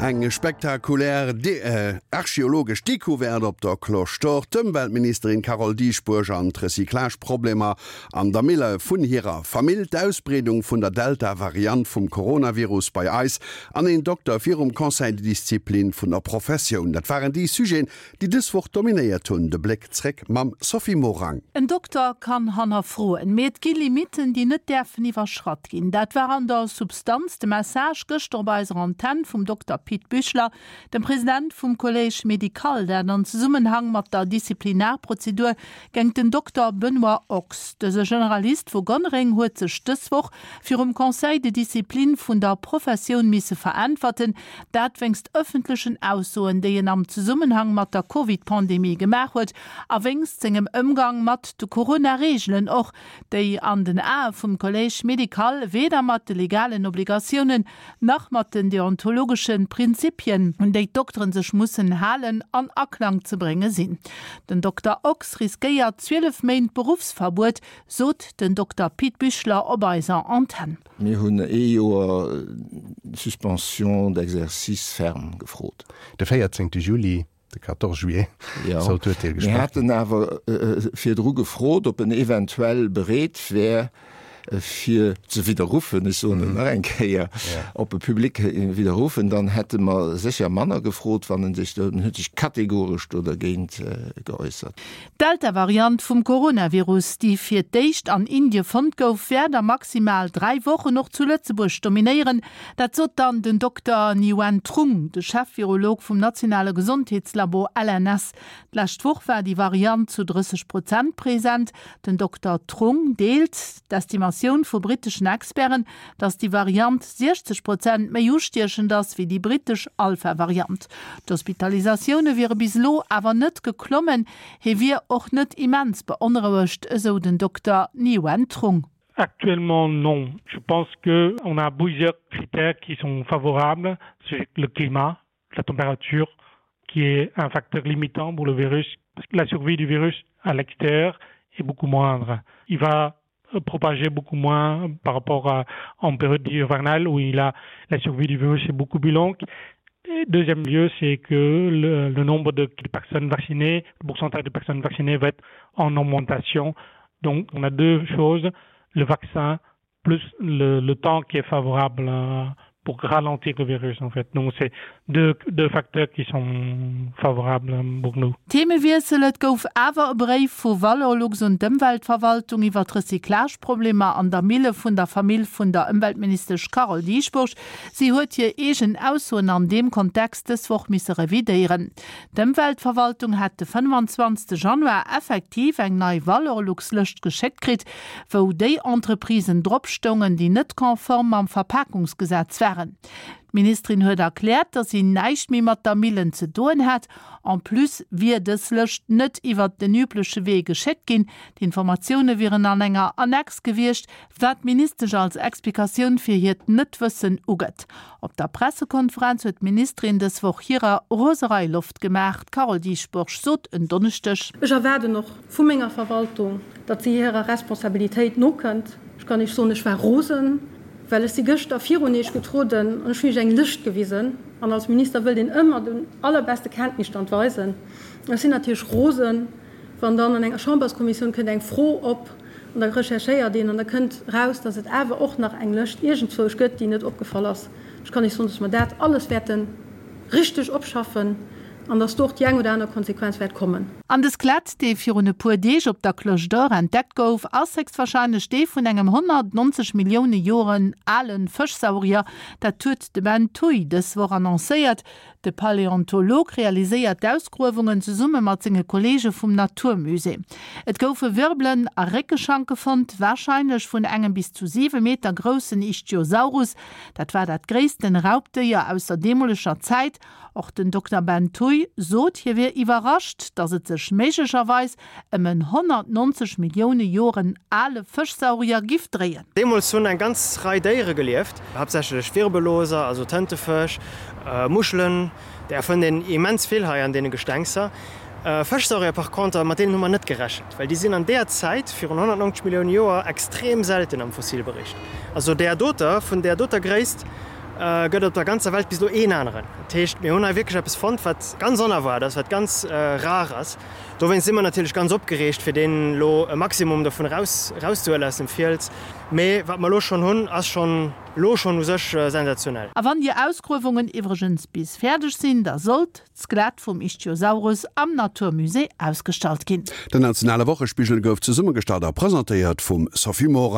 Eng spektakulär archeologesch Decouverte op der Cloche d'Or, d'Ëmweltministerin Carole Dieschbourg an d'Recyclage-Problemer an der Mille vun hirer Famill, d'Ausbreedung vun der Delta-Variant vum Coronavirus bei eis an een Dokter virum Conseil de discipline vun der Professioun. Dat waren déi Sujeten, déi dës Woch dominéiert hunn. De Bléck zréck mam Sophie Morang. En Dokter kann hannerfroen, mee et gi Limitten, déi net däerfen iwwerschratt ginn. Dat war an der Substanz de Message gëschter op eiser Antenn vum Dokter Pit Büchler, dem President vum Collège médical, dat an Zesummenhang mat der Disziplinarprozedur géingt den Dokter Benoît Ochs. Dëse Generalist vu Gonnereng huet sech dës Woch virum Conseil de discipline vun der Professioun misse veräntwerten, Dat wéinst ëffentlechen Aussoen, déi en am Zesummenhang mat der Covid-Pandemie gemaach huet a wéinst sengem Ëmgang mat de Corona-Reegelen och, déi an den Ae vum Collège médical weder mat de legalen Obligatiounen nach mat den deontologesche Prinzipien, un déi d'Dokteren sech mussen halen, an Aklang ze brénge sinn. Den Dokter Ochs riskéiert 12 Méint Beruffsverbuet, sot den Dokter Pit Büchler op eiser Antenn. Mir hunn ee Joer Suspension d'exercice ferme gefrot. De 14 Juli, de 14 juillet, soll d'Urteel gesprach ginn. Mir haten awer virdru gefrot, ob en eventuell bereet wär, fir ze widderruffen, ech soen et nach eng Kéier, ob e public widderruffen, dann hätte mer sécher manner gefrot, wann en sech, en huet sech kategoresch do dergéint geäussert. D'Delta-Variant vum Coronavirus, déi fir d'éischt an Indie fonnt gouf, wäert a maximal 3 Wochen och zu Lëtzebuerg dominéieren. Dat sot dann den Dokter Nguyen Trung, de Chef-Virolog vum nationale Gesondheetslabo LNS. D'lescht Woch war déi Variant zu 30 Prozent present. Den Dokter Trung deelt d'Estimatioun vu britteschen Experten, datt déi Variant 60 Prozent méi ustiechend ass wéi déi brittesch Alpha-Variant. D'Hospitalisatioune wiere bis elo awer net geklommen. Hie wier och net immens beonrouegt, esou den Dokter Nguyen Trung. Actuellement non. Je pense que on a plusieurs critères qui sont favorables, c'est le climat, la température qui est un facteur limitant pour le virus. La survie du virus à l'extérieur est beaucoup moindre. Il va propager beaucoup moins par rapport à en période hivernale où il a la survie du virus est beaucoup plus longue. Et deuxième lieu, c'est que le, le nombre de personnes vaccinées, le pourcentage de personnes vaccinées va être en augmentation. Donc on a deux choses, le vaccin plus le, le temps qui est favorable euh, pour ralentir le virus en fait. Donc c'est deux, deux facteurs qui sont favorables pour nous. Themewiessel, Et gouf awer e Bréif vu Valorlux un d'Ëmweltverwaltung iwwer d'Recyclageproblemer an der Mille vun der Famill vun der Ëmweltministesch Carole Dieschbourg. Si huet hir eegen Aussoen an deem Kontext dës Woch misse revidéieren. D'Ëmweltverwaltung hätt de 25 Januar effektiv eng nei Valorlux-Lëscht geschéckt kritt, wou déi Entreprisen drop stoungen, déi net konform mam Verpakungsgesetz waren. D'Ministerin huet erkläert, datt si näischt méi mat der Millen ze doen hätt. En plus wier dës Lëscht net iwwert den übleche Wee geschéckt ginn, d'Informatioune wieren an enger Annex gewiescht, wat d'Ministesch als Explikatioun fir hiert Net-Wëssen ugëtt. Op der Pressekonferenz huet d'Ministerin dës Woch hirer Roserei Loft gemaach. D'Carole Dieschbourg sot en Donneschdeg. Ech erwaarden och vu menger Verwaltung, datt si hirer Responsabilitéit nokënnt. Ech kann Iech soen, ech war rosen, well ech si gëschter virun Iech getrueden an ech hunn Iech eng Lëscht gewisen. An als Minister wëllt een ëmmer den allerbeste Kenntnisstand weisen. Ech sinn natierlech rosen, wann dann an enger Chamberskommissioun kënnt eng Fro op an da recherchéiert een an da kënnt eraus, datt et awer och nach eng Lëscht iergendzwousch gëtt, déi net opgefall ass. Ech kann Iech soen, datt mer dat alles wäerte richteg opschaffen. An dass do och déi eng oder aner Konsequenz wäert kommen. An de Skelett, dee virun e puer Deeg op der Cloche d'Or entdeckt gouf, ass héchstwarscheinlech dee vun engem 190 Millioune Joren ale Fëschsaurier. Dat huet de Ben Thuy dës Woch annoncéiert. De Paläontolog realiséiert d'Ausgruewungen zesumme mat senge Kolleege vum Naturmusée. Et goufe Wirbelen a Réckeschanke fonnt, warscheinlech vun engem bis zu 7 Meter groussen Ichthyosaurus. Dat war dat gréissten Raubdéier aus der deemoleger Zäit. Och den Dokter Ben Thuy sot, hie wier iwwerrascht, datt et sech méiglecherweis ëm en 190 Millioune Joren ale Fëschsaurier giff dréien. Deemools hunn eng ganz Rei Déiere gelieft, haaptsächlech Wirbelloser, also Tëntefësch, Muschelen, där fënnt een immens vill hei an deene Gestengser. Fëschsaurier par conter, mat deenen hu mer net gerechent, well déi sinn an deeër Zäit, virun 190 Millioune Joer, extrem selten am Fossilbericht. Also där doter, vun där doter Gréisst. Gëtt op der ganzer Welt bis elo een aneren. Dat heescht, mir hunn hei wierklech eppes fonnt, wat ganz onerwaart ass, wat ganz rar ass. Dowéinst si mer natierlech ganz opgereegt, fir deen elo e Maximum dovun eraus erauszehuelen aus dem Fiels. Mee wat mer elo schonn hunn, ass schonn elo schonn u sech sensationell. A wann déi Ausgruewungen iwwregens bis fäerdeg sinn, da sollt d'Skelett vum Ichthyosaurus am Natur Musée ausgestallt ginn. Den nationale Wochespigel gouf zesummegestallt a presentéiert vum Sophie Morang.